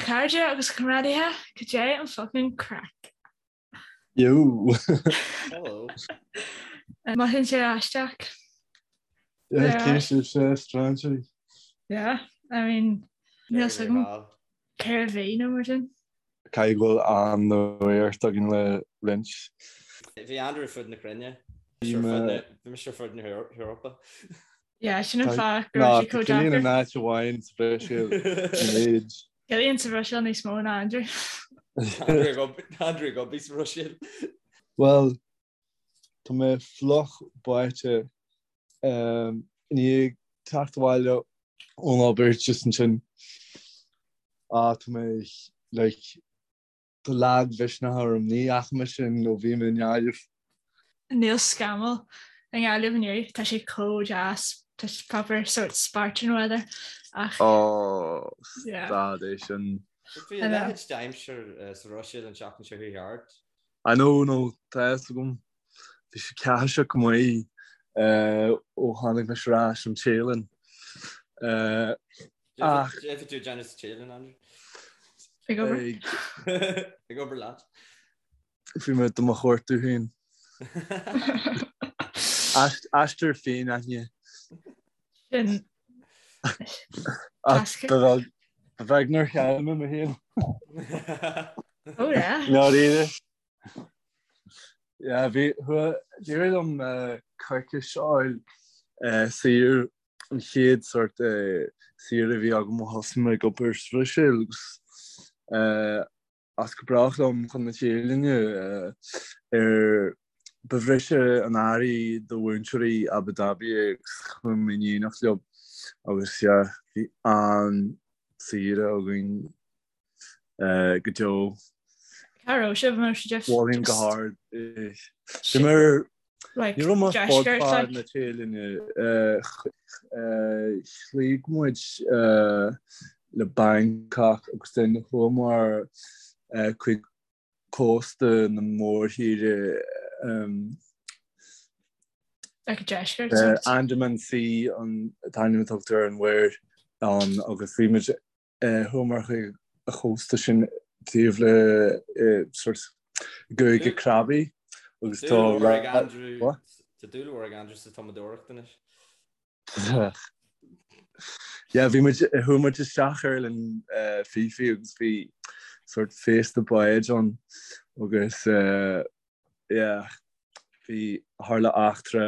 chairde agus a chomrádaithe, cad é an fucking craic? Yo! Hello. Mothaíonn sé aisteach. Yeah, cé sibhse, strainséirí? Yeah, I mean, níl a fhios agam cé a bhí nó mar sin. Caithfidh go bhfuil an-nuacht againn le roinnt. Bhí Andrew ar fud na cruinne. Bhí mise ar fud na hEorpa. Yeah, sin an fáth go raibh sé chomh Cillian deacair. in áit amháin sa Bhruiséil an méid. Cillian sa Bhruiséil níos mó ná Andrew. Andrew ag obair sa Bhruiséil. Bhuel, tá mé fliuch báite i ndiaidh teacht abhaile ón obair just ansin. Ah, tá mé like Tá lagmhisneach orm, ní fhaca mé sin ó bhí mé i nGaillimh. Níl scamall i nGaillimh inniu, tá sé chomh deas, tá sé proper sort Spartan weather ach. Ó, stad é sin. Bhí a leithéid d'aimsir sa Bhruiséil an tseachtain seo chuaigh thart. I know, no, tá a fhios agam. Bhí sé ceathaiseach go maith ó tháinig mise ar ais ón Téalainn. Ach. Cad é a bhí tú ag déanamh sa Téalainn, Andrew? Ag obair. Ag obair leat. Bhí mé do mo chuartú féin. Aistear féin-aithne. Sin. Ach ba bheag nár chaill mé mé féin. Oh yeah. Ndáiríre. Yeah, bhí, d'éirigh liom coicís a fháil saor, an chéad sort saoire a bhí agam ó thosaigh mé ag obair sa Bhruiséil agus as go brách liom chun na Téalainne ar ba bhriseadh an earraigh do mhúinteoirí Abu Dhabi é agus chuaigh mé in éineacht leo agus yeah, bhí an-saoire againn. go deo. Cá raibh sibh an raibh sibh Mholfainn go hard é. Bhí mé ar Ní raibh mé fud fad na Téalainne. Chloígh muid le Bangkok agus then chuamar chuig cósta na mórthíre. Like deisceart. Andaman Sea an t-ainm a tugtar ar an mhuir ann agus bhí muid Chuamar chuig an chósta sin taobh le sort gCúige Krabi agus tá Tá dúil mhór ag Andrew sa tumadóireacht anois. Yeah, bhí muid chuaigh muid isteach ar Oileán Phi Phi agus bhí sort féasta báid ann agus yeah, bhí tharla eachtra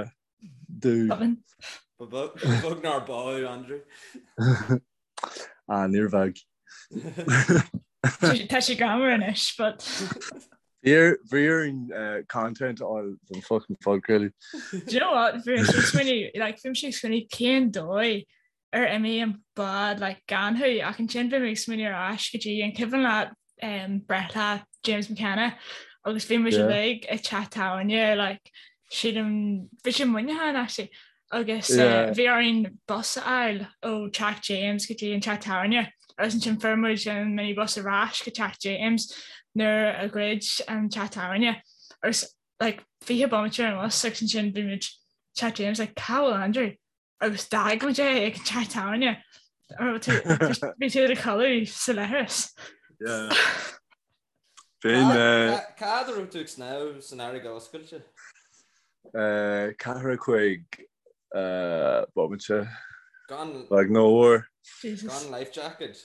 dúinn. Ba bheag nár bádh Andrew. Ah, níor bheag. Tá sé greannmhar anois, but. Bhí orainn content a fháil don fucking phodchraoladh. Do you know what? Bhí mise ag smaoineamh, like, bhí mise ag smaoineamh cén dóigh ar imigh an bád like, gan thú ach ansin bhí mé ag smaoineamh ar ais go dtí an cuimhin leat um, breithlá James McKenna agus bhí muid uilig i teach tábhairne like, sílim bhí sé Muineachán actually agus uh, bhí orainn bus a fháil ó teach James go dtí an teach tábhairne agus ansin fuair muid an minibus ar ais go teach James nuair a dhruid an teach tábhairne agus like 20 bomaite ar an bhus agus ansin bhí muid teach James like cá bhfuil Andrew agus d'fhág muid é ag an teach tábhairne. Bhí tú i do chodladh sa leithreas. Bhí Cá fhad a raibh tú ag snámh san fharraige oscailte? Ceathracha cúig bomaite. Gan Like no war. Gan life jacket?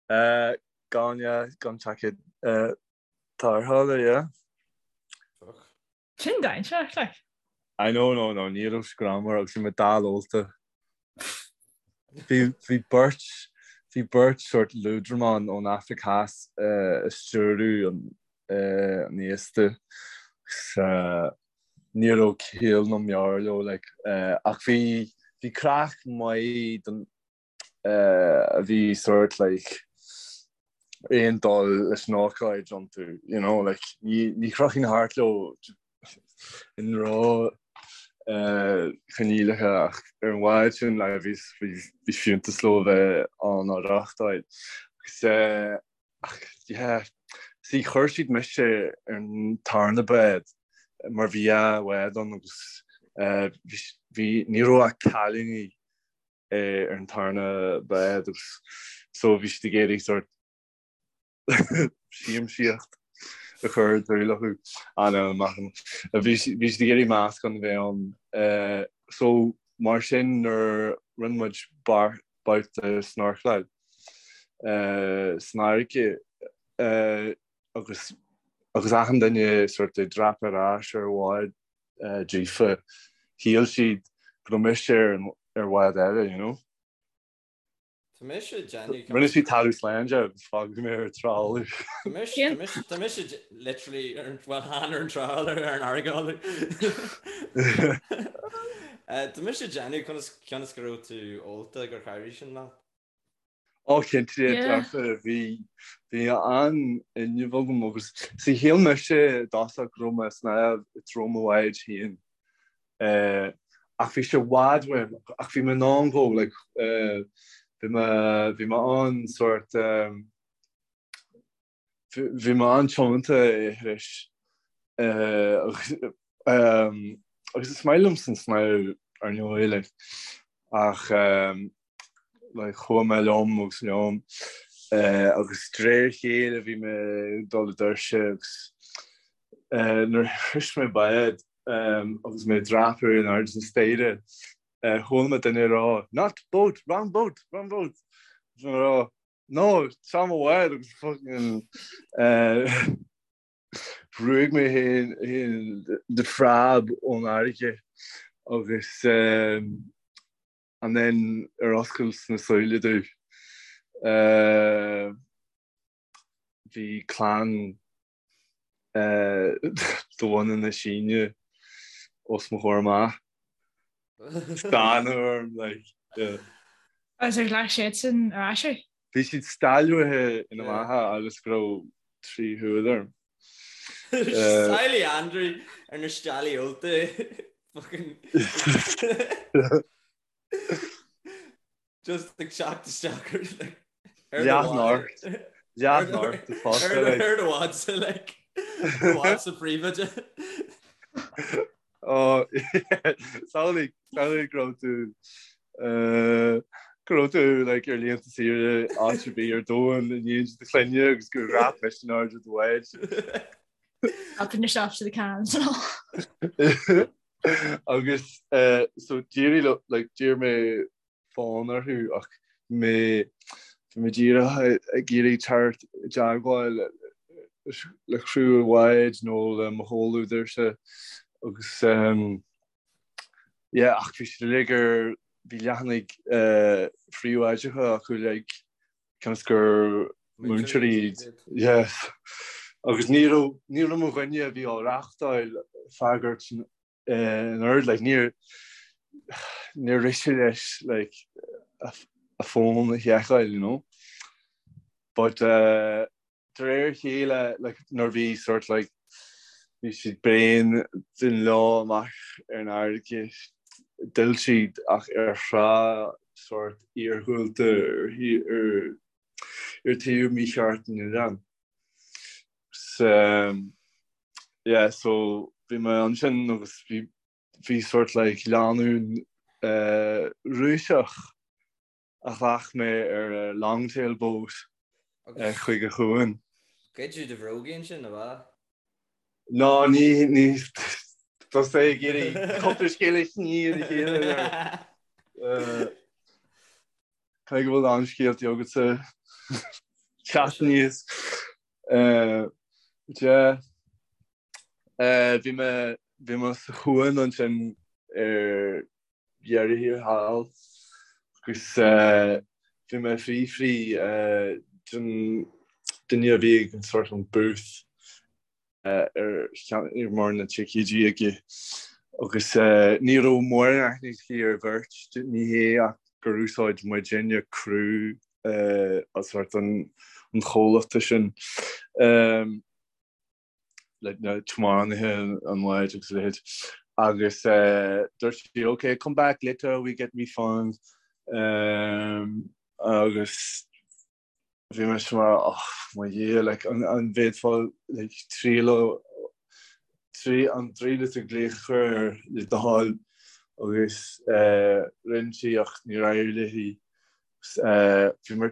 Gan yeah, gan jacket tarrthála, yeah. Fuck. Sin dainséarach, like. I know, no, no, ní raibh sé greannmhar agus bhí mé dall ólta. Bhí, bhí beirt, bhí beirt sort liúdramán ón Afraic Theas ag stiúradh an, an fhéasta agus ní raibh ciall ná meabhair leo, like, ach bhí, bhí craic maith don, a bhí sort like aon dul leis an ócáid iontu, you know, like ní ní chrochfainn thart leo i ndroch choinníollacha ach ar an bhád sin like bhí bhí fiúntas leo a bheith ann á reáchtáil. Agus ach yeah, see chuir siad mise ar an tarna bád mar bhí dhá bhád ann agus bhí ní raibh ach cailíní ar an tarna bád agus so bhí siad ag iarraidh sort. Siamsaíocht a chur i dúil acu. Bhí siad ag iarraidh meascán a bheith ann. So mar sin nuair rinne muid babhta snorcláil san fharraige agus agus achan duine sort ag dreapadh ar ais ar bhád daofa, shíl siad go raibh mise ar bhád eile, you know. Tá mise ag déanamh. Rinne siad talamh slán de agus fágadh mé ar an trawler. Tá mise literally ar an, well, chan ar an trawler, ar an fharraige. Tá mise ag déanamh conas cionn is go raibh tú ólta gur chabhraigh sin leat. Ó cinnte, dearfa, bhí bhí an-fhuinneamh agam agus see shíl mise i dtosach go raibh mé ag snámh i dtreo mo bháid féin. Ach bhí sé i bhfad uaim, ach bhí mé in ann dhó, like, bhí mé, bhí mé an-sort, bhí mé an-tiomanta a shrois. Agus is maith liomsa an snámh ar ndóigh, like, ach like, chuaigh mé liom agus liom agus de réir a chéile bhí mé ag dul i dtuirse agus nuair a shrois mé bád agus mé ag dreapadh in airde na staighre, chuala mé duine ag rá, Not boat, wrong boat, wrong boat! Bhí mé ag rá, No, seo mo bhád agus fucking bhrúigh mé féin de phreab ón fharraige agus and then ar oscailt na súile domh bhí clann de bhunadh na Síne os mo chomhair amach. Stánadh orm, like, yeah. Agus ar ghlac siadsan ar ais thú? Bhí siad steallbhaithe ina mbeatha agus go raibh tri shúil orm. Samhlaigh Andrew ar na steallaí ólta. Fucking. Just ag teacht isteach ar like ar do Leath bhád. Leath north fosta like. Ar do bhádsa like ar do bhádsa príobháideach. Oh samhlaigh samhlaigh go raibh tú go raibh tú like ar laethanta saoire áit ar bith ar domhan in éindí do chlainne agus gur dhreap mise in airde do bháid. Open yourself to the cans and all. Agus so d'éirigh liom like d'iarr mé fón orthu ach bhí mé bhí mé díreach ag iarraidh teacht i dteagmháil le criú an bháid nó le mo chomhluadarsa agus yeah ach bhí siad uilig ar bhí leathanaigh phríobháideacha acu uilig cionn is gur múinteoirí iad. Yes. Agus ní raibh ní raibh mo dhuine a bhí á reachtáil freagairt in ord like níor níor rith sé leis like a fón a sheiceáil you know. But uh, de réir a chéile like nuair bhí sort like bhí siad bréan den leo amach ar an fharraige d'fhill siad ach ar thrá sort iargúlta ar ar ar taobh mícheart an oileáin. So yeah so bhí mé ansin agus bhí bhí sort like lánúin Rúiseach a ghlac mé ar longtail boat chuig an chuan. Goideadh do bhrógaí ansin, ab ea? Ná ní ní tá sé ag iarraidh cúpla scéal a shní ar a chéile there. Caithfidh go bhfuil an-scéaltaí agatsa teacht aníos. Yeah. Bhí mé bhí mé sa chuan ansin ar dheireadh thiar thall agus bhí mé ag fiafraí den duine a bhí ag an sort an booth ar ar mar na ticéidí aige agus ní raibh mórán aithne aici ar bheirt, ní hé ach gur úsáid muidinne criú as sort an chomhlachta sin. like na tiománaithe an bháid agus a leithéid agus dúirt sí ok come back later we get refund um, agus bhí mé mar oh, mo Dhia like, an, an bhféadfá like, triail trí an dtríú tú glaoch a chur air le do thoil agus uh, rinne sí ach níor éirigh léi uh, bhí mé.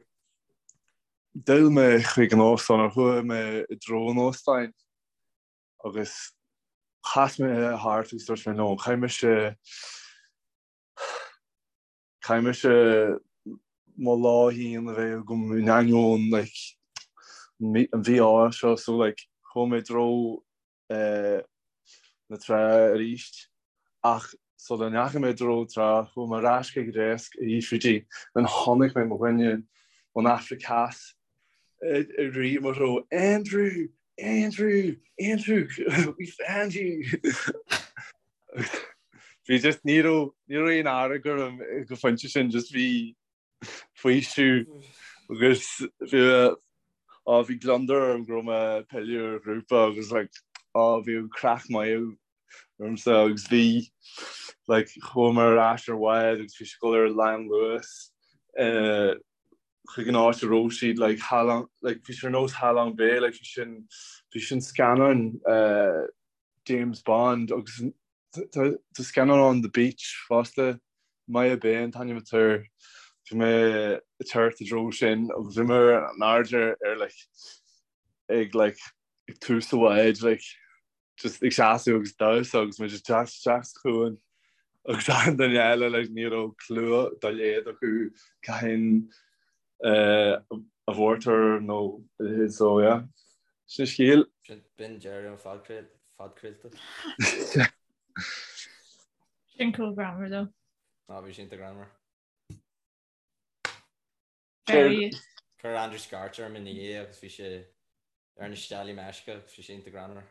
D'fhill mé chuig an óstán, or chuaigh mé i dtreo an óstáin agus chas mé thart agus dúirt mé no, caithfidh mise, caithfidh mise mo lá féin a bheith agam in ainneoin like an mhí-ádh seo so like chuaigh mé i dtreo na trá arís ach sula ndeachaigh mé i dtreo trá chuaigh mé ar ais chuig an deasc ag fiafraí di then chonaic mé mo dhuine ón Afraic Theas ag rith mo threo Andrew! Andrew! Andrew! We found you! Bhí just ní raibh ní raibh aon fhearg orm ag an phointe sin just bhí faoiseamh agus bhí á bhí gliondar orm go raibh mé ag pilleadh ar ghrúpa agus like á bhí an craic maith ormsa agus bhí like chuamar ar ais ar bhád agus bhí sé ag dul ar lánluas eh, chuig an áit a raibh siad like Ha Long like bhí sé ar nós Ha Long Bay like bhí sin bhí sin scannán eh, James Bond agus Tá scannán ann The Beach fosta, Maya Bay an t-ainm atá air. Bhí mé ag teacht i dtreo sin agus bhí mé in airde ar like ag like ag tús an bháid like just ag seasamh agus damhsa agus mé just teacht isteach sa chuan agus achan duine eile like ní raibh clue dá laghad acu cathain a mhórtar nó a leithéid so yeah. Sin scéal. B'in deireadh an phodchraolta. Sin chomh greannmhar though. Ná bhí sin greannmhar. Chuir Andrew scairt orm ina dhiaidh agus bhí sé ar na steallaí meisce agus bhí sé iontach greannmhar.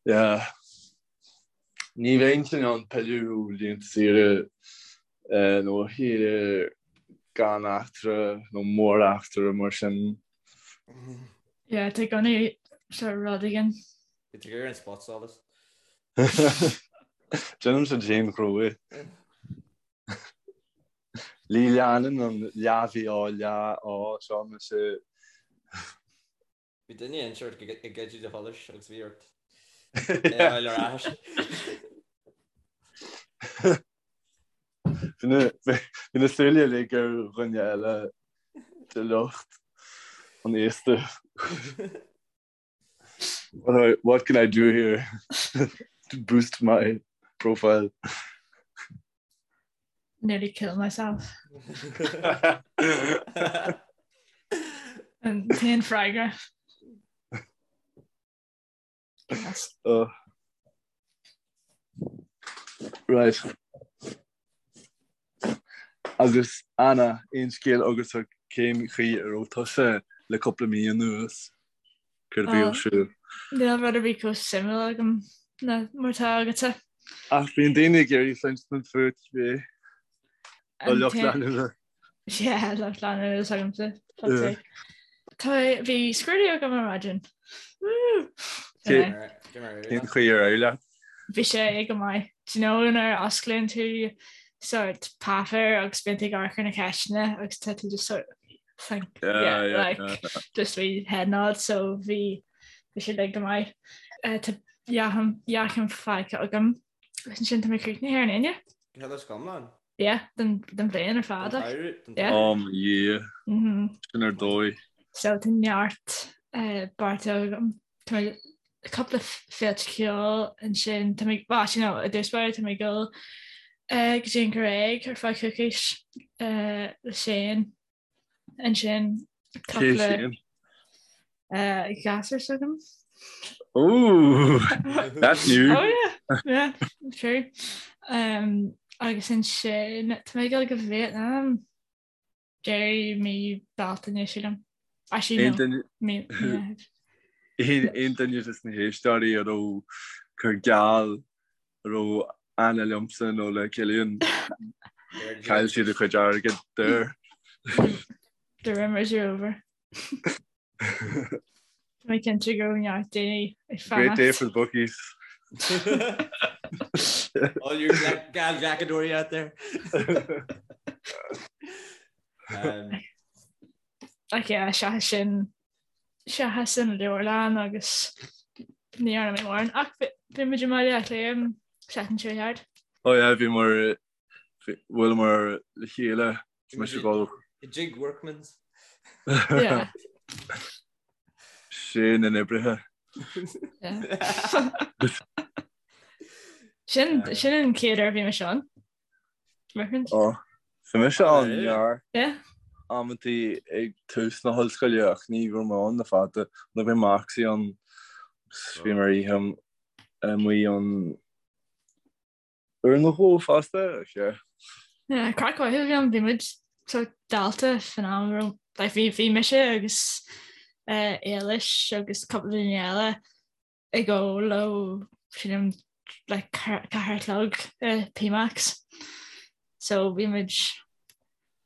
Yeah. Ní bheinn in ann pilleadh ó laethanta saoire nó ó shaoire gan eachtra nó móreachtra mar sin. Yeah, tá i gcónaí sort rud éigin. Bhí tú ag iarraidh an spotsolas. Déanaimse d'aon ghnó é. Ní leanann an leath-mhí-ádh leath-ádh seo mise. Bhí duine inteacht ag goid do sholais agus bhí ort é a fháil ar ais. Bhí na súile uilig ar dhuine eile de lucht an fhéasta. What can I do here to boost my profile? Nearly kill myself. An t-aon freagra. Yes. Oh. Right. Agus Anna, aon scéal agatsa cén chaoi a raibh tusa le cúpla mí anuas? Céard a bhí ar siúl? Níl rud ar bith chomh suimiúil agam ná mar atá agatsa. Ach bíonn daoine ag iarraidh cluinstin fút, bhí. Tá lucht leanúna. Yeah, lucht leanúna is agamsa. Fuck's sake. Tá bhí scrúdú agam ar maidin. Cén chaoi ar éirigh leat? Bhí sé go maith. Do you know nuair a osclaíonn tú sort páipéar agus bíonn tú ag amharc ar na ceisteanna agus tá tú just sort think yeah, yeah, yeah, like yeah, yeah. just wee head nod so bhí bhí sé like go maith. Uh, tá dea-chéim faighte agam agus ansin tá mé críochnaithe ar an Aoine. Cad is iomlán? Yeah, den den bhliain ar fad. Yeah. Oh mo Dhia. Mm-hmm. Sin ar dóigh. So tá neart uh, beartaithe agam. Tá mé cúpla féilte ceoil ansin tá mé well, actually no, i dtús báire tá mé ag dul uh, go dtí an Ghréig ar feadh coicís uh, le Shane ansin Cé cúpla Shane? uh, gasúr s'agam. Ooh, that's new. Oh yeah, yeah, true. Um, agus ansin tá mé ag dul go Vietnam deireadh mí Bealtaine sílim. Actually Aon no, duine mí Meitheamh. aon duine des na héisteoirí a raibh cur geall a raibh aithne liomsa nó le Cillian, chaill siad a chuid airgid there. The rumours are over. Tá mé cinnte go raibh neart daoine ag Great day fanacht. for the bookies. All you geallghlacadóirí out there. Um, Ach yeah, seachas sin seachas an leabharlann agus ní dhearna mé mórán ach bhí muid i mBaile Átha Cliath an seachtain seo thart. Oh yeah, bhíomar bhuaileamar le chéile. Tá mise ag dul. I dtigh Workman's. Yeah. Sé na n-oibrithe. Sin sin an chéad uair a bhí mise ann. Workman's. Ó, bhí mise ann neart Yeah. amantaí ag tús na hollscoile ach ní raibh mé ann le fada. Nuair a bhí Moxie ann agus bhí mé ar oíche amuigh ann uair nó dhó fosta, ach yeah. Yeah, craic mhaith a bhí ann, bhí muid sort dalta fan am a raibh, like bhí bhí mise agus eh Éilis agus cúpla duine eile ag ól ó sílim like 4 a chlog i P-Max. So bhí muid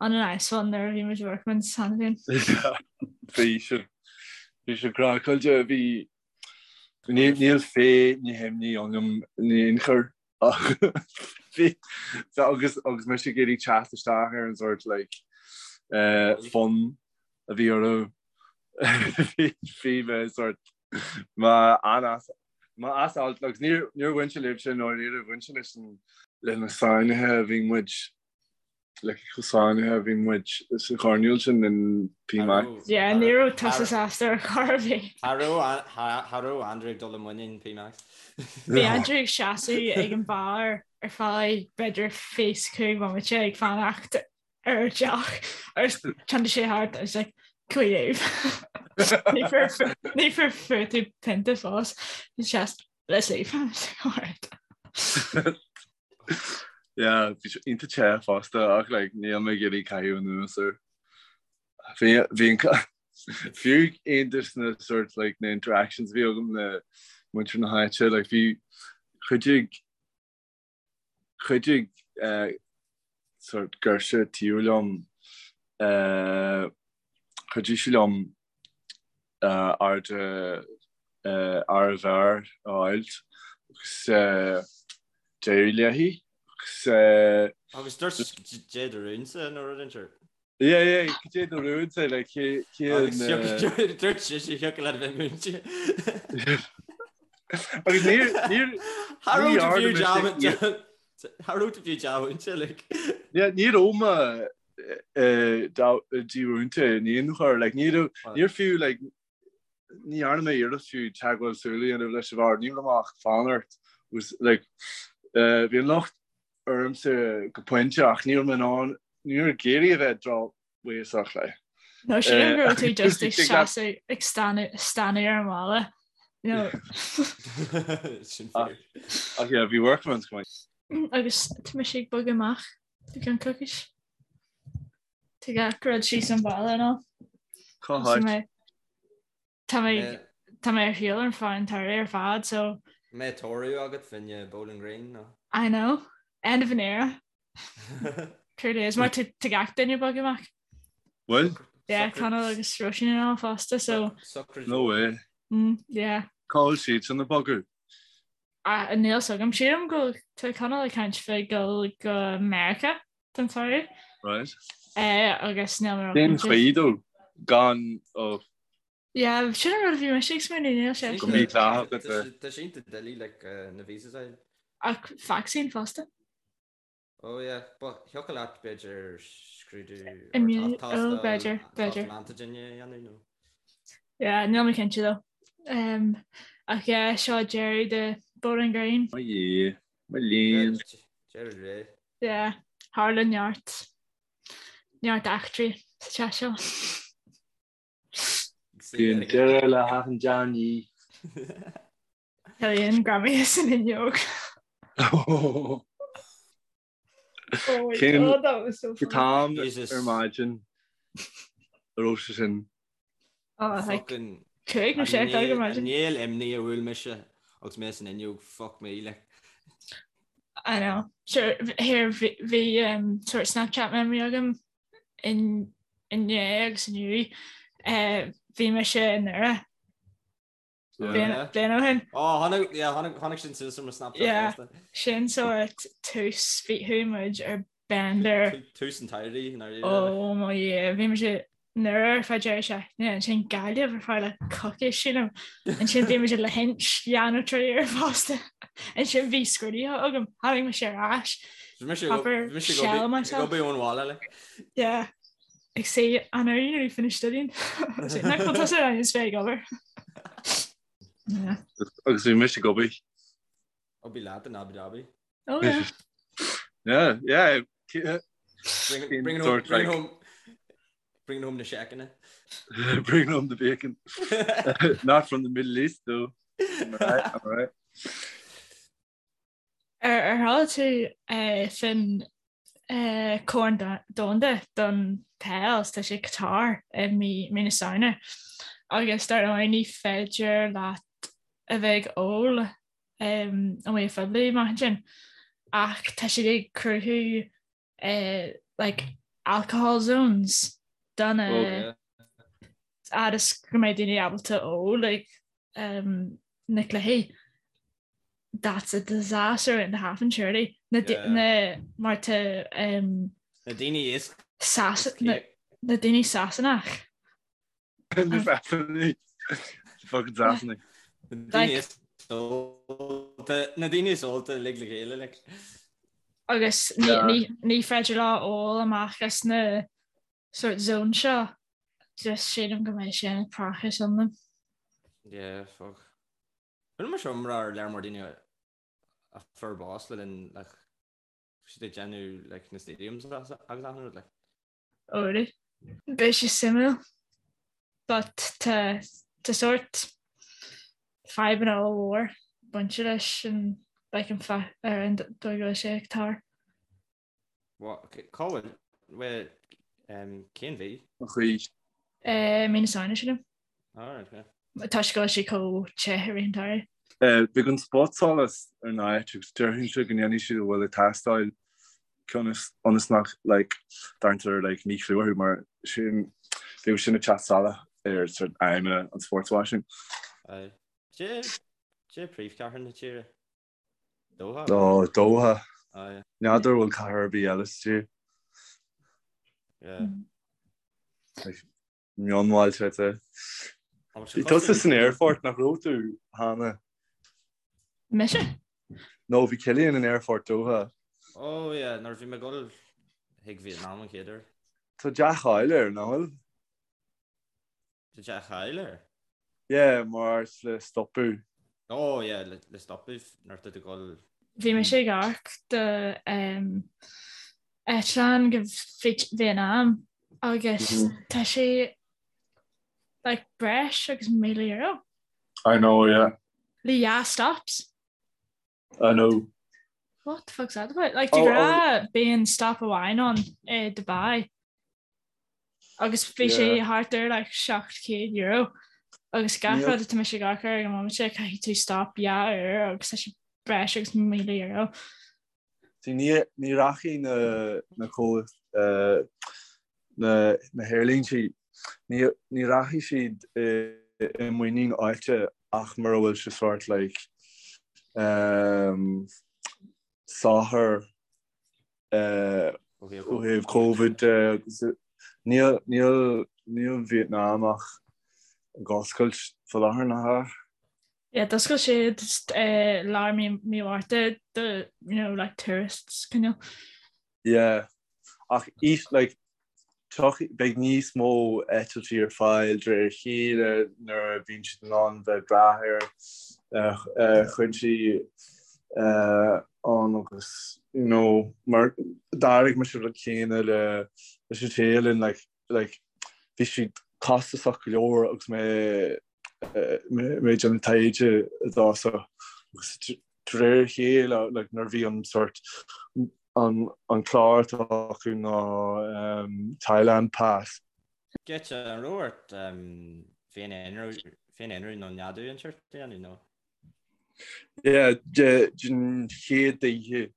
on a nice one nuair a bhí muid i Workman's cheana féin. Bhí sé bhí sé craiceáilte bhí níl féith na himní ionam in aon chor ach bhí agus agus mise ag iarraidh teacht isteach ar an sort like eh, fun a bhí orthu bhí mé sort mé an-as mé as alt agus níor níor bhain sé libhse nó níor bhain sé leis an le na sáinnithe a bhí muid like chomh sáinnithe a bhí muid sa choirnéal sin in P-Max. Yeah, ní raibh tusa sásta ar chor ar bith. Cha raibh Andrew ag dul i muinín P-Max. Bhí Andrew ag seasamh ag an bar ar feadh b'fhéidir 25 bomaite ag fanacht ar deoch agus tháinig sé thart agus like, can we leave? Ní fuair fuair tú pionta fós. Just let's leave. Alright. Yeah, bhí sé iontach te fosta ach like níl mé ag iarraidh caitheamh anuas air. Bhí bhí an fiú aon de na sort like na interactions a bhí agam le muintir na háite like bhí chuidigh chuidigh eh, sort girseach taobh liom eh, chuidigh sí liom airde ár bhfear a fháilt agus d'éirigh léi agus. Agus dúirt cad é do rúnsa nó rud inteacht. Yeah, yeah, cad é do rúnsa like cé cé an. Agus dúirt sise thiocfadh leat a bheith múinte. Agus níor níor Cha raibh tú fiú dea Cha raibh tú fiú dea-mhúinte like. Yeah, ní raibh mé dímhúinte in aon chor, like ní raibh níor fiú like ní dhearna mé iarracht fiú teagmháil súl a dhéanamh leis an bhfear, ní raibh mé ach fanacht was like bhí an locht ormsa go pointe ach ní raibh mé in ann ní raibh ag iarraidh a bheith drochbhéasach like. No sílim go raibh tú just ag seasamh ag stánadh ar an bhalla. You know. Sin fíor. Ach yeah, bhí Workman's go maith. Agus tá mise ag bogadh amach i gceann coicís. Tá gach rud síos an balla nó. Cá háit? Tá mé tá mé ar shiúl ar feadh an tsamhraidh ar fad so. Mbeidh tórramh agat fá choinne Bowling Green nó? I know. End of an era. Truly is. Mar tá gach duine ag bogadh amach. Bhfuil? Yeah, Conall agus Róisín and all fosta so. No way. Mm, yeah. Cá bhfuil siad sin ag bogadh? Ah, níl 's agam. Sílim go tá Conall ag caint fá dul go Meiriceá don tsamhradh. Right. Eh, agus níl mé Cén chaoi dó gan ó Yeah, sin an rud a bhí mise ag smaoineamh, níl sé. Go mídhleathach a bheith. Tá sé iontach doiligh like na visas a fháil. Ach vacsaín fosta. Oh yeah, but thiocfadh leat b'fhéidir scrúdú Immune, oh b'fhéidir, b'fhéidir. antigen a dhéanamh nó. Yeah, níl mé cinnte though. Um, ach yeah, seo deireadh de Bowling Green. Mo Dhia, mo léan. Deireadh ré. Yeah, tharla neart, neart eachtraí sa teach seo. Bíonn deireadh le hachan dea-ní. Cillian greamaithe san fhuinneog. Oh Oh my Cén God, that was so funny. t-am ar maidin a raibh sé sin? Oh, like, 5 nó 6 a chlog ar maidin. An néal imní a bhuail mise agus mé san fhuinneog, fuck me, like. I know. Sure, here bhí um, sort of Snapchat memory agam in inné agus inniu. Uh, bhí mise i nDoire Bliain ó shin. Ó, tháinig, yeah, tháinig, tháinig sin suas ar mo Snapchat Yeah, fosta. sin sort tús, bhí chuaigh muid ar bender. Tús an tsamhraidh, i ndáiríre. Oh my yeah, bhí muid i nDoire ar feadh deireadh seachtaine, ansin Gaillimh ar feadh like coicís sílim. Ansin bhí muid i Lahinch dhá nó trí uair fosta. Ansin bhí scrúduithe agam, tháinig mise ar ais. Proper shell myself. Go ón bhaile like. Yeah. Ag say I know you nearly finished studying. Nach bhfuil tusa ar is bheith ag obair. Yeah. Agus bhí mise ag obair. I'll be leat in Abu Dhabi. Oh yeah. Yeah, yeah. Bring, bring, home, bring, home, bring home na seiceanna. Bring home the bacon. Not from the Middle East though. I'm right, I'm right. Ar chuala tú faoin Corn Domhanda don Peil, tá sé Qatar i mí na Samhna agus dar ndóigh ní féidir leat a bheith ag ól amuigh phoiblí amach ansin ach tá siad ag cruthú like alcohol zones don fhad is go mbeidh daoine ábalta ól ag na cluichí. That's a disaster and a half and surely. Na na mar tá um, Na daoine is Sas na na daoine Sasanach. Na Sasanaigh. Fucking Sasanaigh. Na daoine is ólta na daoine is ólta uilig le chéile like. Agus ní ní ní féidir leo ól amach as na sort zone seo. Just sílim go mbeidh sé ina praiseach iomlán. Yeah, fuck. Rinne mé seo iomrá ar lear mór daoine a fuair bás le linn like siad ag déanamh like na stadiums agus achan rud like. Oh really? Beidh sé suimiúil but tá tá sort fadhbanna ollmhór bainte leis an like an fa ar an dóigh go bhfuil sé ag tar. Cá bhfuil, bhuel, cén mhí? An chaoi. Mí na Samhna, sílim. Alright, okay. Toisc go bhfuil sé chomh te i rith an tsamhraidh. Beidh an spotsolas ar an áit agus déarfainnse go ndéanfaidh siad a bhfuil ag teastáil ionas nach like dtarraingtear like míchlú orthu mar sin bheadh sin ag teacht salach ar sort aidhmeanna an sports washing. Aye. Cad é príomhchathair na tíre? Doha? Ó, Doha. Aye. N'fheadar bhfuil cathair ar bith eile sa tír. Yeah. Like, mionbhailte I'd say. Bhí tusa san aerfort nach raibh tú, Hannah? Mise? No, bhí Cillian in aerfort Doha. Oh yeah, nuair a bhí mé ag dul chuig Vietnam an chéad uair. Tá dea-cháil air, nach bhfuil? Tá dea-cháil air? Yeah, mar áit le stopadh. Oh yeah, le stopadh nuair atá tú ag dul. Bhí mise ag amharc do eitleán go Vietnam agus tá sé like breis agus €1,000. I know, yeah. Le dhá stops. I know. What the fuck's that about? Like, de ghnáth bíonn stop amháin ann i Dubai. Agus bhí sé thart ar like €700 agus gach rud atá mise ag amharc air ag an móimint caithfidh tú stop dhá uair agus tá sé breis agus €1,000. See ní ní rachaidh na na comh na na haerlíntí ní ní rachaidh siad i i muinín áite ach mura bhfuil sé sort like um, socair Ó thaobh Covid de agus níl níl níl Vietnam ach ag oscailt faoi láthair nach ea? Yeah, d'oscail siad lár mí mí Mhárta do you know like tourists cineál. Yeah. Ach is like Beidh níos mó eitiltí ar fáil de réir a chéile nuair a bhíonn siad in ann bheith ag brath ar chúinsí ann agus you know mar d'airigh mise an rud céanna le leis an Téalainn like like bhí siad costasach go leor agus mé mé ag déanamh taighde i dtosach agus de réir a chéile like nuair a bhí an sort an an clár atá acu ná Thailand Pass. Giota, an raibh ort féin-aonrú nó neadú inteacht a dhéanamh nó? Yeah, den chéad oíche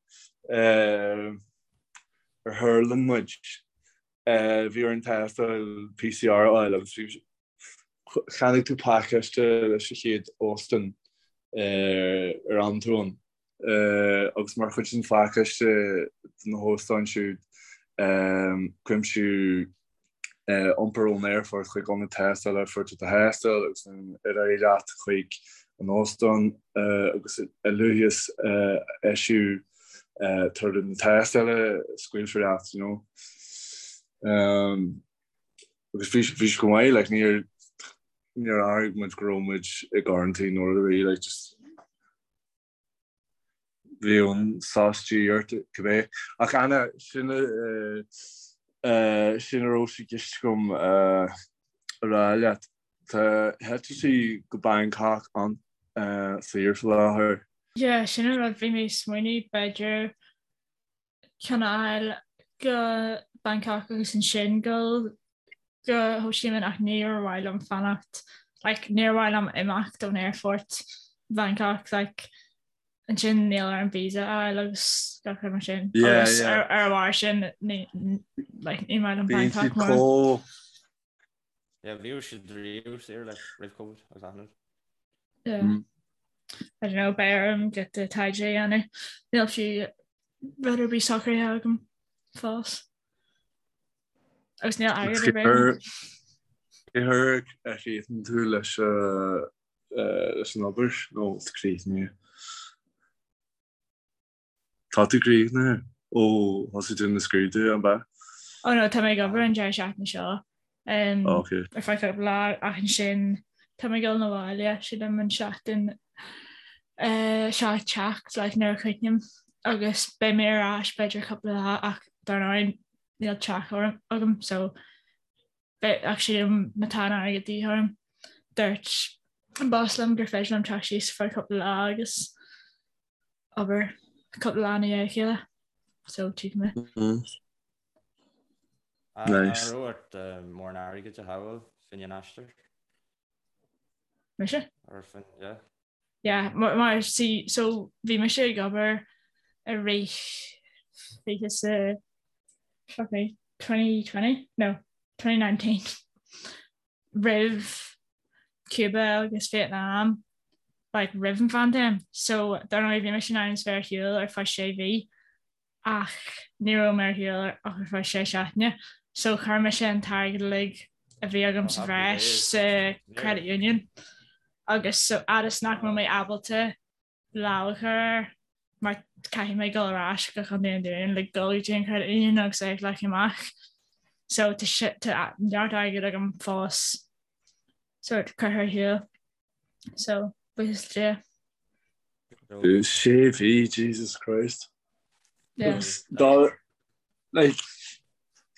ar thuirling muid, bhí orainn tástáil PCR a fháil agus bhí Cheannaigh tú pacáiste leis an chéad óstán ar fhan tú ann agus mar chuid den phacáiste do na hóstáin siúd cuimsíodh iompar ón aerfort chuig ionad tástála a fuair tú do thástáil agus ansin ar aghaidh leat chuig an óstán agus a luaithe is a eisíodh. Tar an tástáil scaoilfear leat, you know. Agus bhí bhí sé go maith, like níor níor airigh muid go raibh muid i gcoraintín nó rud ar bith, like just bhí an sos de dhíth ort cibé. Ach Anna, sin sin a raibh sé i gceist agam a rá leat. Tá heitiltí go Bangkok an-saor faoi láthair. Yeah, sin an rud, bhí mé ag smaoineamh b'fhéidir ceann a fháil go Bangkok agus ansin dul go Ho Chi Minh ach níor mhaith liom fanacht, like níor mhaith liom imeacht ón aerfort Bangkok, like ansin níl orm visa a fháil agus gach rud mar sin. Yeah, Agus yeah. ar ar a bharr sin ní like ní maith liom Bíonn Bangkok siad mórán. chomh Yeah, bhíodh siad riamh saor like roimh Covid agus achan rud. Yeah. Mm. I don't know, beidh orm giota taighde a dhéanamh. Níl fiú rud ar bith socraithe agam fós. Agus níl airgead ar bith agam. Cé huair a chríochnaíonn tú leis leis an obair nó críochnaíonn? Tá tú críochnaithe ó thosaigh tú na scrúduithe, an ea? Oh no, tá mé ag obair an deireadh seachtaine seo um, Oh, okay. ar feadh cúpla lá ach ansin tá mé ag dul 'na bhaile sílim an seachtain uh, seo ag teacht like, nuair a chríochnaím agus beidh mé ar ais b'fhéidir cúpla lá ach dar ndóigh níl teach orm agam so beidh ach sílim má tá an airgead de dhíth orm dúirt an boss liom gur féidir liom teacht síos ar feadh cúpla lá agus obair cúpla lá i ndiaidh a chéile so tchífidh mé. Nice. An raibh ort mórán airgid a shábháil fá choinne an aistir? Mise? Or fá, yeah. Yeah, mar, mar see, so bhí mise ag obair i rith 20 sa fuck me, 2020? No, 2019. Roimh Cuba agus Vietnam like roimh an phaindéim so dar ndóigh bhí mise in ainm is bheith ar shiúl ar feadh sé mhí ach ní raibh mé ar shiúl ach ar feadh sé seachtaine so chuir mise an t-airgead uilig a bhí agam sa bhreis sa credit union agus so fhad is nach raibh mé ábalta lámh a chur air mar caithfidh mé dul ar ais go Contae an Dúin le dul go dtí an credit union agus é a ghlacadh amach. So tá tá neart airgid agam fós sort curtha ar shiúl. So buíochas le Dia. Sé mhí, Jesus Christ. Yeah. Dá like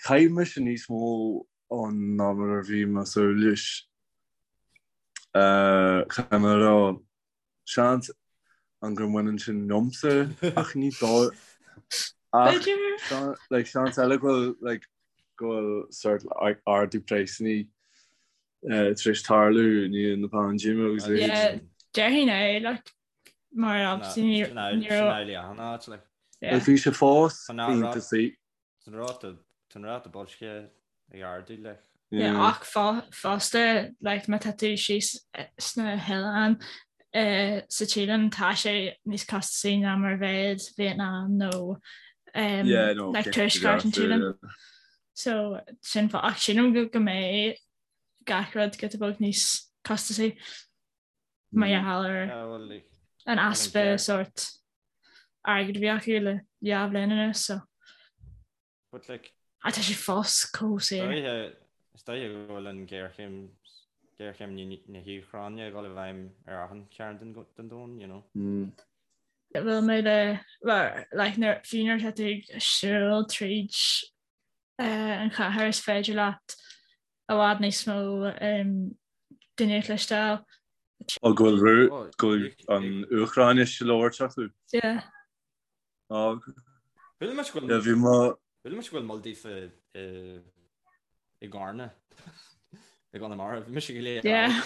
chaith mise níos mó ann ná mar a bhí mé ag súil leis. Caithfidh mé a rá Seans an gur mbaineann sin liomsa ach ní dóigh ach like seans eile go bhfuil like go bhfuil sort like ardú praghsanna tar éis tarlú i ndiaidh na paindéime agus a leithéid. Yeah, déarfainn é like mar obviously ní ní raibh Sin amhlaidh achan áit like. yeah. Like bhí sé fós iontach saor. Tá an ráta tá an ráta boilscithe ag ardú like. Yeah, ach fosta like má tá tú síos sna hoileáin sa Téalainn tá sé níos costasaí ná mar a bheadh Vietnam nó um, Yeah, no, like tuaisceart an Téalainn. So sin fáth ach sílim go go mbeidh gach rud giota beag níos costasaí mar gheall ar Yeah, well, like, an easpa sort airgead a bhí acu le dhá bhliain anuas so. But like. Ah tá sé fós chomh saor. Is dóiche go bhfuil an ghéarchéim, géarchéim na hÚcráine ag dul i bhfeidhm ar achan chearn den domhan, you know. Bhfuil mé le, well, like nuair, fiú nuair atá tú ag siúl tríd an chathair is féidir leat i bhfad níos mó daoine a chloisteáil. Ó go bhfuil go bhfuil an Úcráinis á labhairt acu. Yeah. Ó Chuala mise go yeah, bhí mo chuala mise go bhfuil moll daofa i i gCarna i gConamara. Bhí mise go léir. Yeah.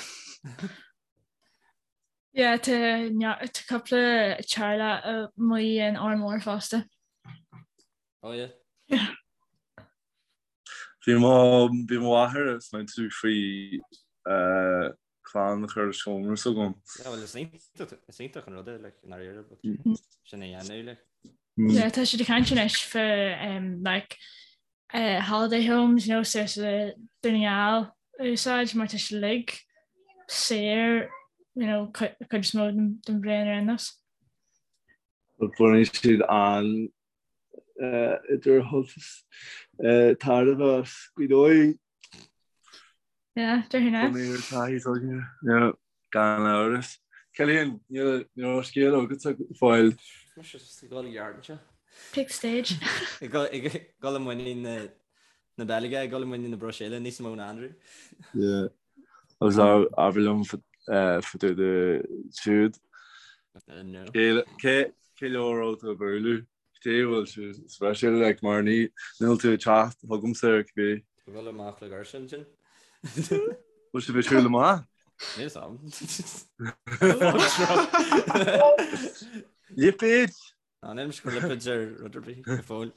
Yeah, tá tá cúpla teaghlach amuigh in Órán Mór fosta. Oh yeah. Yeah. Bhí mo bhí mo mháthair ag smaointiú faoi clann a chur i seomra s'agam. Yeah, well is iontach is iontach an rud é like i ndáiríre but sin a dhéanamh like. Yeah, tá siad ag caint anois faoi um, like uh, holiday homes, you know, so sa Dún na nGall a úsáid mar tá siad uilig saor, you know, cuid is mó den bhliain ar aon nós. Baineann siad an idir tairbhe as Gaoth Dobhair. Yeah, déarfainn é. Bunaithe ar taithí s'againne. Yeah, gan amhras. Cillian, níl níl scéal agatsa go fóill. Mise just ag dul i gceart anseo. Take stage. Ag dul i muinín na Beilge, ag dul i muinín na Bruiséile níos mó ná Andrew. Yeah. Agus abair liom fá dtaobh de siúd. No. Cé cé leo a raibh tú ag bualadh? Cé bhfuil sé speisialta like mar ní níl tú ag teacht chugamsa ar cibé. Ag dul amach le girse ansin. Bhfuil sibh ag siúl amach? Níl 'fhios a'm. Lipéid! Ná níl mise ag cur lipéid ar rud ar bith go fóill.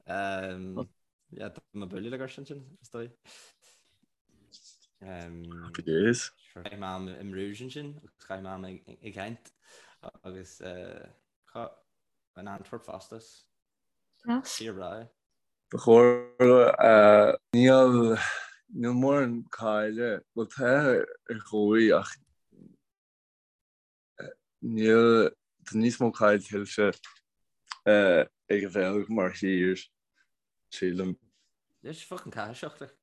Yeah, tá mé ag bualadh le girse ansin, is dóigh. Happy days. Chaith mé am i mBruges ansin agus chaith mé am i Ghent agus in Antwerp fosta. Tír bhreá é. Ba chóir níl níl mórán cáile, bhuel tá ar dhóigh ach Níl, tá níos mó cáil tuillte ag an Bheilg mar thír, sílim. Is fucking caithiseach like.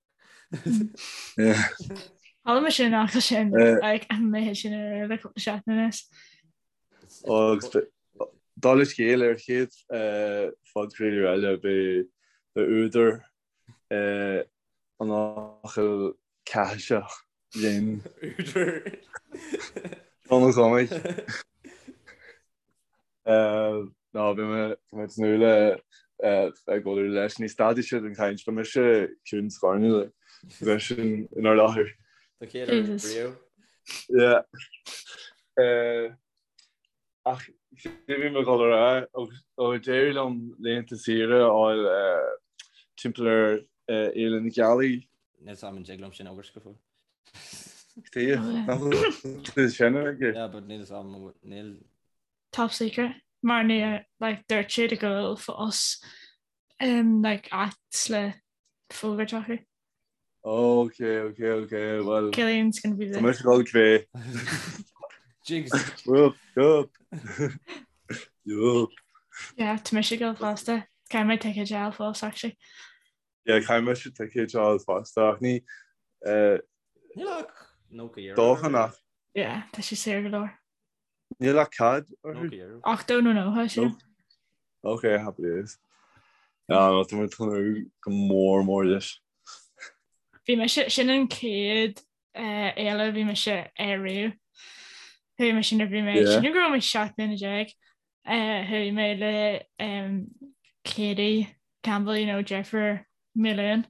Chuala mé sin an fhocal sin like an méid sin ar le cúpla seachtain anuas. Agus dála scéil ar chéad phodchraoladh eile beidh údar an fhocail caithiseach linn. Údar. Seán Ó Cormaic. Ná bhí mé tá mé ag tnúth le ag bualadh leis. Ní stadfaidh siad an chaint, beidh mise ciúin scornach leis sin inár láthair. Don chéad uair riamh. Yeah. Ach cé bhí mé ag dul a rá, ó d'éirigh liom laethanta saoire a fháil timpeall ar Fhéile na Gealaí. Níl 'fhios a'm an dtig liom sin a fhógairt go fóill. Cé nach bhfuil tú sin aige? Yeah, but níl 'fhios a'm, níl. Top secret. Mar ní, like, dúirt siad go bhfuil fós um, like, acts le fógairt acu. Ok, ok, ok, well. Cillian's gonna be there. Tá mise ag dul cibé. Jigs. Yup, yup. Yup. Yeah, tá mise ag dul fosta. Caithfidh mé ticéid a fháil fós, actually. Yeah, caithfidh mise ticéid a fháil fosta, ach ní... Eh, Níl ach 90 euro. Dóchan ach. Yeah, tá sé saor go leor. Níl ach cad orthu? 90 euro. 80 nó 90, sin. Ok, happy days. Ah, no, tá mé ag tnúth go mór mór leis. Bhí mise, sin an chéad eh, fhéile a bhí mise ar riamh. Chuaigh mise nuair a bhí mé, Yeah. sílim go raibh mé 17 mbliana. Eh, chuaigh mé le um, Katie Campbell, you know, deirfiúr Million.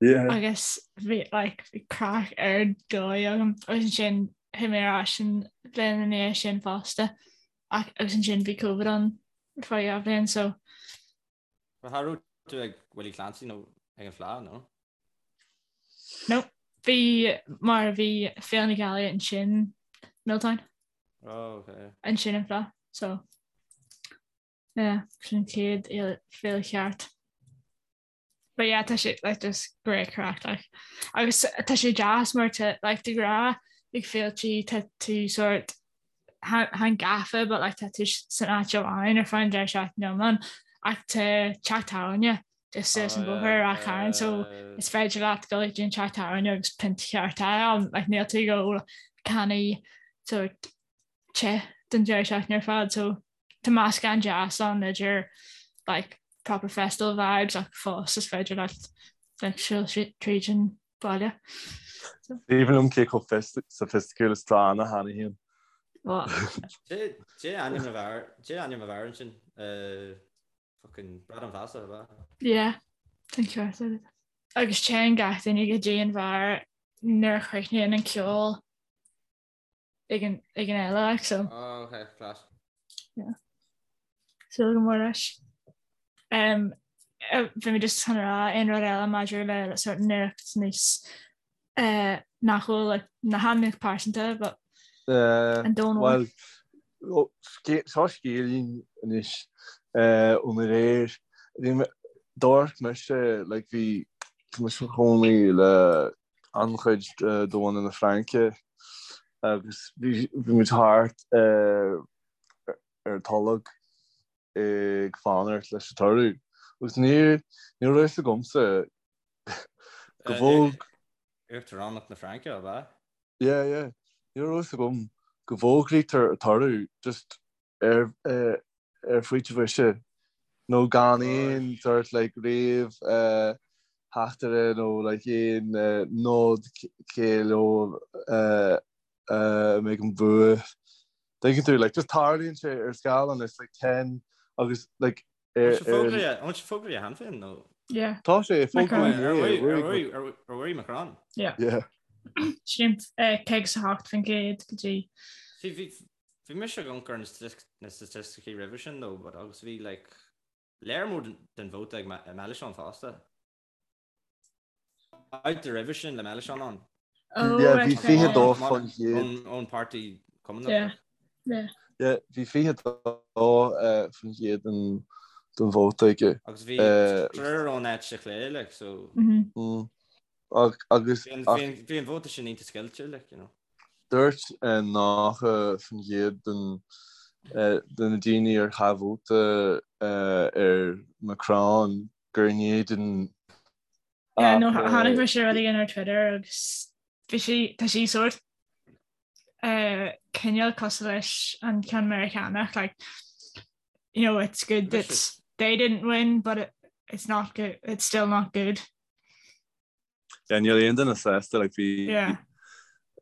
Yeah. Agus bhí like, bhí craic ar dóigh agam agus ansin chuaigh mé ar ais an bhliain ina dhiaidh sin fosta. Ach agus ansin bhí Covid ann ar feadh dhá bhliain so. Cha raibh tú ag Willie Clancy nó ag an Fleadh, nó? No, bhí mar bhí Féile na Gealaí ansin Milltown. Oh, okay. Ansin an Fleadh, so yeah, sin an chéad féile cheart. But yeah, tá sé like just great craic like. Agus tá sé deas mar tá like de ghnáth ag féiltí tá tú sort chan gafa but like tá tú san áit amháin ar feadh an deireadh seachtaine iomlán ach tá teach tábhairne just suas an bóthar ar Ráth Chairn so is féidir leat dul go dtí an teach tábhairne agus pint cheart a fháil like níl tú ag ól cannaí sort te don deireadh seachtaine ar fad so tá meascán deas ann idir like proper festival vibes ach fós is féidir leat like siúl tríd an baile. So. Aoibhinn liom cé chomh sophisticiúil is atá Anna cheana féin. Cé ainm a bhfear, cé ainm a bhfear ansin? Fucking Bradán Feasa, ab ea? Yeah, tá an ceart agat. Agus téann gach duine go dtí an bheár nuair a chríochnaíonn an ceol. ag an ag an fhéile like so. Oh, okay, class. Yeah. Súil go mór leis. Um, bhí mé just chun rá aon rud eile maidir le sort nuacht níos uh, nach bhfuil like, na hainmneacha pearsanta but uh, an domhan Well, seo scéilín anois uh, ón aréir. D'amharc mise like bhí tá mise i mo chónaí le an-chuid de bhunadh na Fraince agus bhí muid thart. ar an tolg ag fanacht leis an toradh agus ní ní raibh fhios agamsa go bhfóg Uachtaránacht na Fraince, ab ea? Yeah, yeah. Ní raibh fhios agam go bhfógraítear an toradh just ar ar phointe bhoise nó gan aon sort like réamh theachtaire nó like aon nod cé leo a mbeidh an bua. Tuigeann tú like just tarlaíonn sé ar scáileán it's like 10 agus like ar An bhfuil sé fógraithe cheana féin nó? Yeah. Tá sé fógraithe Ar bhuaigh Macron? Yeah. Yeah. Sin 58% go dtí. Bhí mise ag amharc ar na staitisticí roimhe sin though but agus bhí like léar mór den vóta ag Mélenchon fosta. Babhta roimhe sin le Mélenchon ann. Oh, Yeah, bhí 22%. Ón páirtí Cumannach. Yeah, yeah. Yeah, bhí 22% den den vóta aige. Agus bhí triúr ón eite chlé like so. Mm. Agus bhí an vóta sin iontach scoilte like, you know. Dúirt 90% den de na daoine ar chaith vóta ar Macron gur in éadan Yeah, no, chonaic mise rud éigin ar Twitter agus bhí sí, tá sí sórt uh, cineál cosúil leis an ceann Meiriceánach, like, you know, it's good that they didn't win, but it, it's not good, it's still not good. Yeah, níl aon duine sásta like bhí Yeah.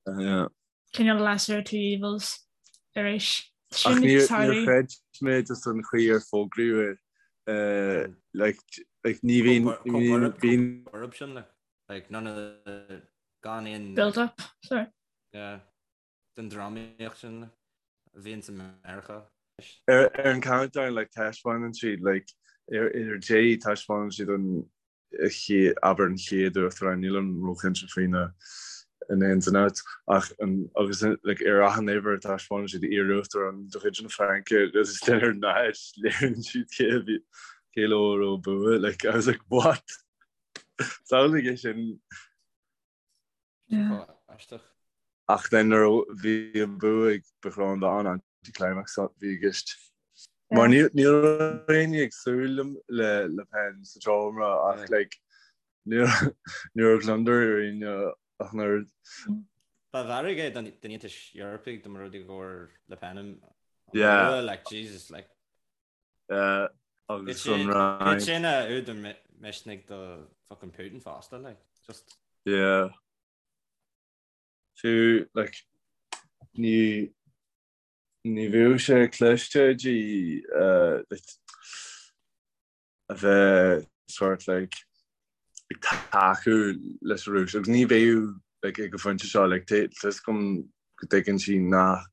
yeah. Cineál lesser of two evils arís. Ach níor níor chreid mé just an chaoi ar fógraíodh é eh, like like ní bhíonn ní bhíonn bíonn Corruption like like none of the gan aon Build up, sorry. yeah den drámaíocht sin like a bhíonn sa Meiriceá. Ar ar an countdown like taispeánann siad like ar ar dé taispeánann siad an abair an chéad uachtarán, nílim róchinnte faoi na in ins and outs, ach an agus like ar achan uimhir taispeánann siad iar-uachtarán de chuid na Fraince agus then ar náid léiríonn siad cé a bhí cé leo a raibh bua like I was like what? Samhlaigh é sin. Yeah. Aisteach. Ach then nuair a bhí an bua ag Macron ba an-anticlimax a bhí i gceist. Mar ní ní raibh éinne ag súil le Le Pen sa seomra ach like ní ní raibh gliondar ar éinne ach an oiread. Ba mhairg é don Aontas Eorpaigh dá mba rud é go bhfuair Le Pen an Yeah. bua like Jesus like Uh, agus an Fhrainc. Sin a údar misnigh do fucking Putin fosta like just. Yeah. Fiú like ní ní bheadh sé cliste di uh, like, a bheith sort like ag tacú leis an Rúis agus ní bheadh like ag an phointe seo like tá fhios agam go dtuigeann sí nach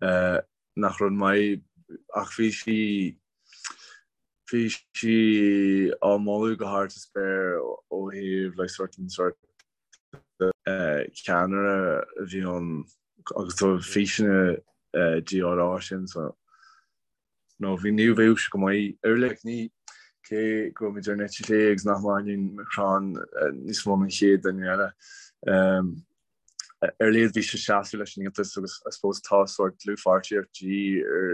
uh, nach rud maith ach bhí sí bhí sí á moladh go hard sa spéir ó thaobh like sort an sort uh, ceannaire a bhí ann agus tá físeanna uh, di á rá sin so nó bhí ní bheadh sé go maith ar like ní cé go bhfuil muid ar an eite chlé agus nach maith linn Macron níos mó ná an chéad duine eile. Um, ar a laghad bhí sé seasamh leis an Aontas agus I suppose tá sórt dlúthpháirtíocht de dhíth ar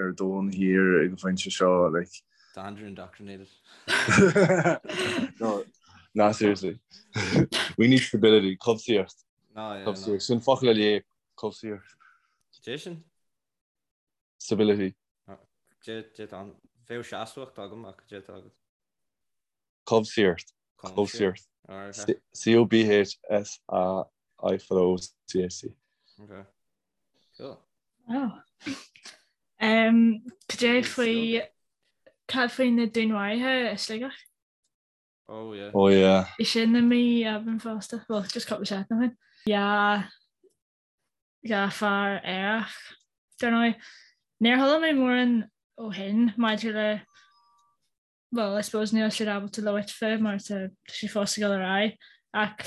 ar domhan thiar ag an phointe seo like. Tá Andrew indoctrinated. No, nah seriously. We need stability, cobhsaíocht. No, yeah, no. Cobhsaíocht. Sin focal a léigh, cobhsaíocht. Cé sin? Stability. Dé dé tá bheadh seasmhacht agam ach dé tá agat. Cobhsaíocht. Cobhsaíocht. C-O-B-H-S-A-I fada O-C-H-T. Okay. Cool. Wow. Um, cad é faoi cad faoi na dúnmharuithe i Sligeach? Oh yeah. Oh yeah. Bhí sin i mí Aibreáin fosta. Well, just cúpla seachtain ó shin. Yeah. 2 fear aerach, dar ndóigh. Níor chuala mé mórán ó shin maidir le, well, I suppose níl siad ábalta labhairt fé mar tá sé fós ag dul ar aghaidh ach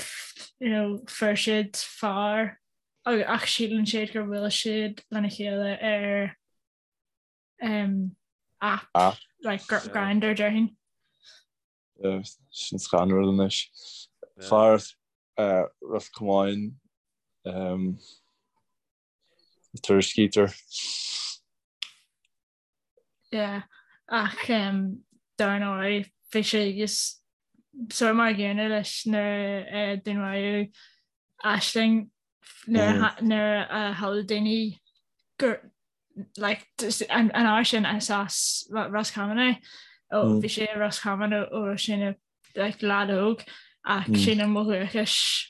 you know, fuair siad fear ach síleann siad gur bhuail siad lena chéile ar um, app, App. like Grindr déarfainn. Sin scanrúil anois. Fear Ros Comáin tuairiscítear. Yeah, ach dar ndóigh bhí sé just sort mar an gcéanna leis nuair a dúnmaraíodh Aisling nuair a shamhlaigh daoine gur like an uair sin is as Ros Comáin é ó bhí sé i Ros Comáin ó ó raibh sé ina like leaid óg ach sílim ó dhúchas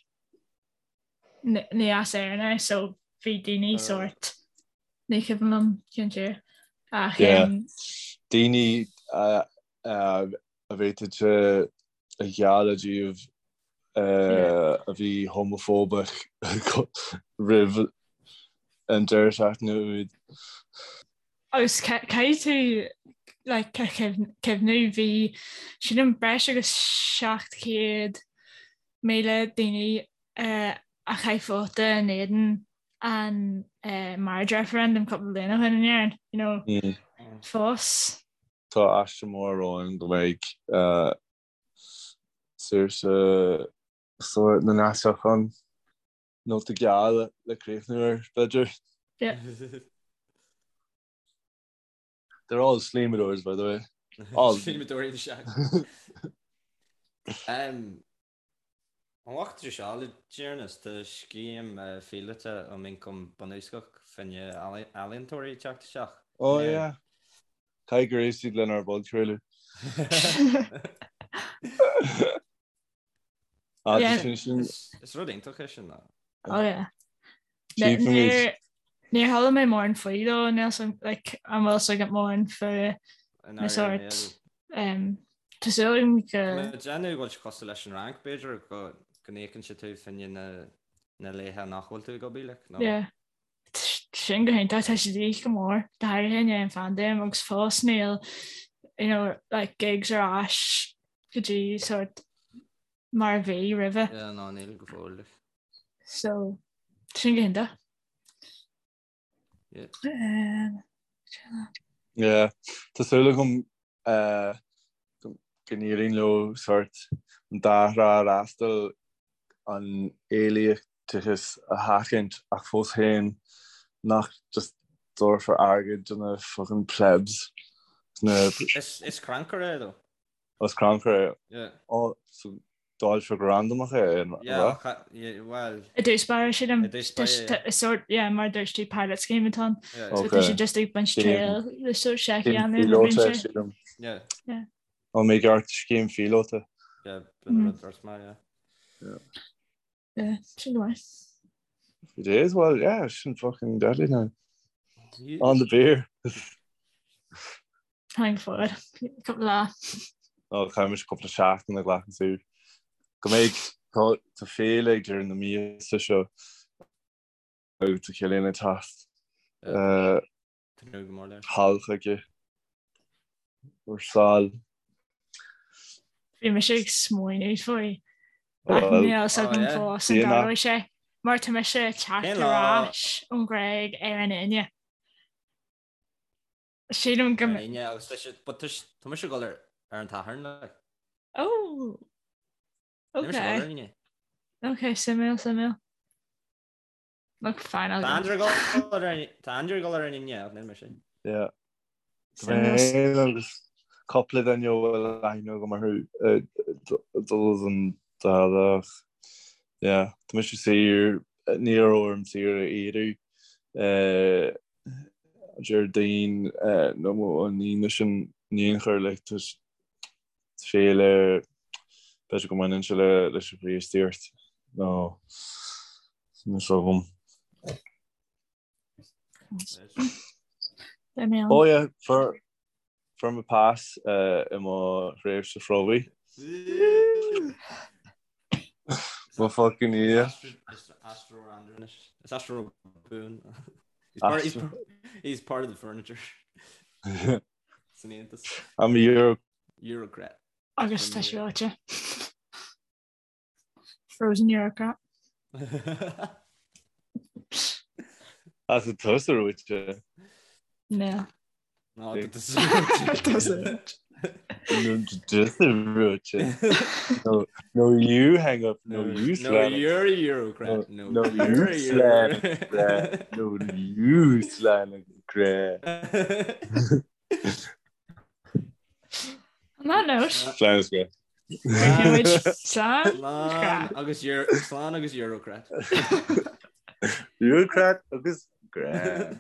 ní as Éirinn é so bhí daoine sort ní cuimhin liom cén tír ach daoine a bhféadfadh a ghealladh díobh a bhí homafóbach roimh an deireadh seachtaine úd. Agus caithfidh tú like cuimhniú bhí sílim breis agus 700,000 daoine a chaith vóta in éadan an marriage referendum cúpla bliain ó shin in Éirinn, you know, fós. Tá aistear mór romhainn go mbeidh saoirse sórt na nDeasach ann. Nóta geal le críochnú air, b'fhéidir. Yeah. They're all slíomadóirs, by the way. All. Slíomadóirí is ea. An bhfaca tú seo le deireanas, tá scéim phíolóta um ioncam bunúsach fá choinne ealaíontóirí ag teacht isteach. Oh yeah. Caithfidh gur éist siad lenár bpodchraoladh. Is rud iontach é sin. Oh yeah. Níor chuala mé mórán faoi though, níl like an bhfuil a fhios agat mórán faoi na sórt Tá súil agam go. Tá mé ag déanamh go bhfuil sé cosúil leis an Fhrainc, b'fhéidir, go n-íocann sé tú fá choinne na laetha nach bhfuil tú ag obair, like, nó. Yeah. Sin go hiontach, tá sé de dhíth go mór, go háirithe i ndiaidh an phaindéim agus fós níl, you know, like gigs ar ais go dtí sort mar a bhí roimhe. Yeah, no, níl go fóill, like. So, sin go hiontach. Yeah, tá súil agam go n-éiríonn leo sórt an dá thrá a fhreastal, an éilíteachas a sheachaint ach fós féin nach just dtabharfar airgead do na fucking plebs. Is crannchur é though. Is crannchur é. Yeah. Oh, so dáilfear go randamach é, an Yeah, ea? well. I dtús báire, sílim. I dtús báire, yeah. Is sort, yeah, mar a dúirt tú, pilot scheme atá ann. Yeah. So tá siad just ag baint triail le sort seic a Scéim dhéanamh le phíolóta, roinnt. sílim. Yeah. Yeah. Ó, mé gceart, scéim phíolóta. Yeah, b'in an rud a dúirt mé, yeah. Yeah. Yeah, sin go maith. It is, well, yeah, sin fucking deadly now. On the beer. Táim fuar. Cúpla lá. Ó, caithfidh mise cúpla seachtain a ghlacadh saor. Go mbeidh, tá féile ag deireadh na míosa seo agus tá Cillian ag teacht Tnúth go mór leis. thall chuige ar sál. Bhí mise ag smaoineamh faoi ach níl a fhios agam fós an dtarlóidh sé mar tá mise ag teacht ar ais ón Ghréig ar an Aoine. Sílim go. Ar an Aoine agus tá sé, but tá tá mise ag dul ar ar an tSatharn like. Oh! Níl mise ag dul ar an Aoine. Ok, suimiúil, suimiúil. Look, fine, I'll Tá Andrew ag dul ar an tá Andrew ag dul ar an Aoine ach níl mise. Yeah. Tá mé féin agus cúpla duine a bhfuil aithne agam orthu ag dul don dá lá ach yeah, tá mise saor, ní raibh orm saoire a iarraidh. Déardaoin nó an Aoine sin in aon chor like tá féile b'fhéidir go mbaineann sé leis an Chríostaíocht nó níl a fhios agam. Oh yeah, fuair fuair mé pas i mo thréimhse phromhaidh. Mo fucking yeah. Is aistritheoir Andrew anois. Is aistritheoir buan. He's part, he's, he's part of the furniture. San Aontas. I'm a Euro. Eurocrat. Agus tá sé reoite. Frozen Eurocrat. As a tusa reoite. Níl. No, tusa reoite. No, tusa reoite. No, no, you hang up. No, you No, you're a Eurocrat. No, no, you slam. No, you slam. On that note, Slán is grá. Slán. Slán agus slán agus Eurocrat. Eurocrat agus grá.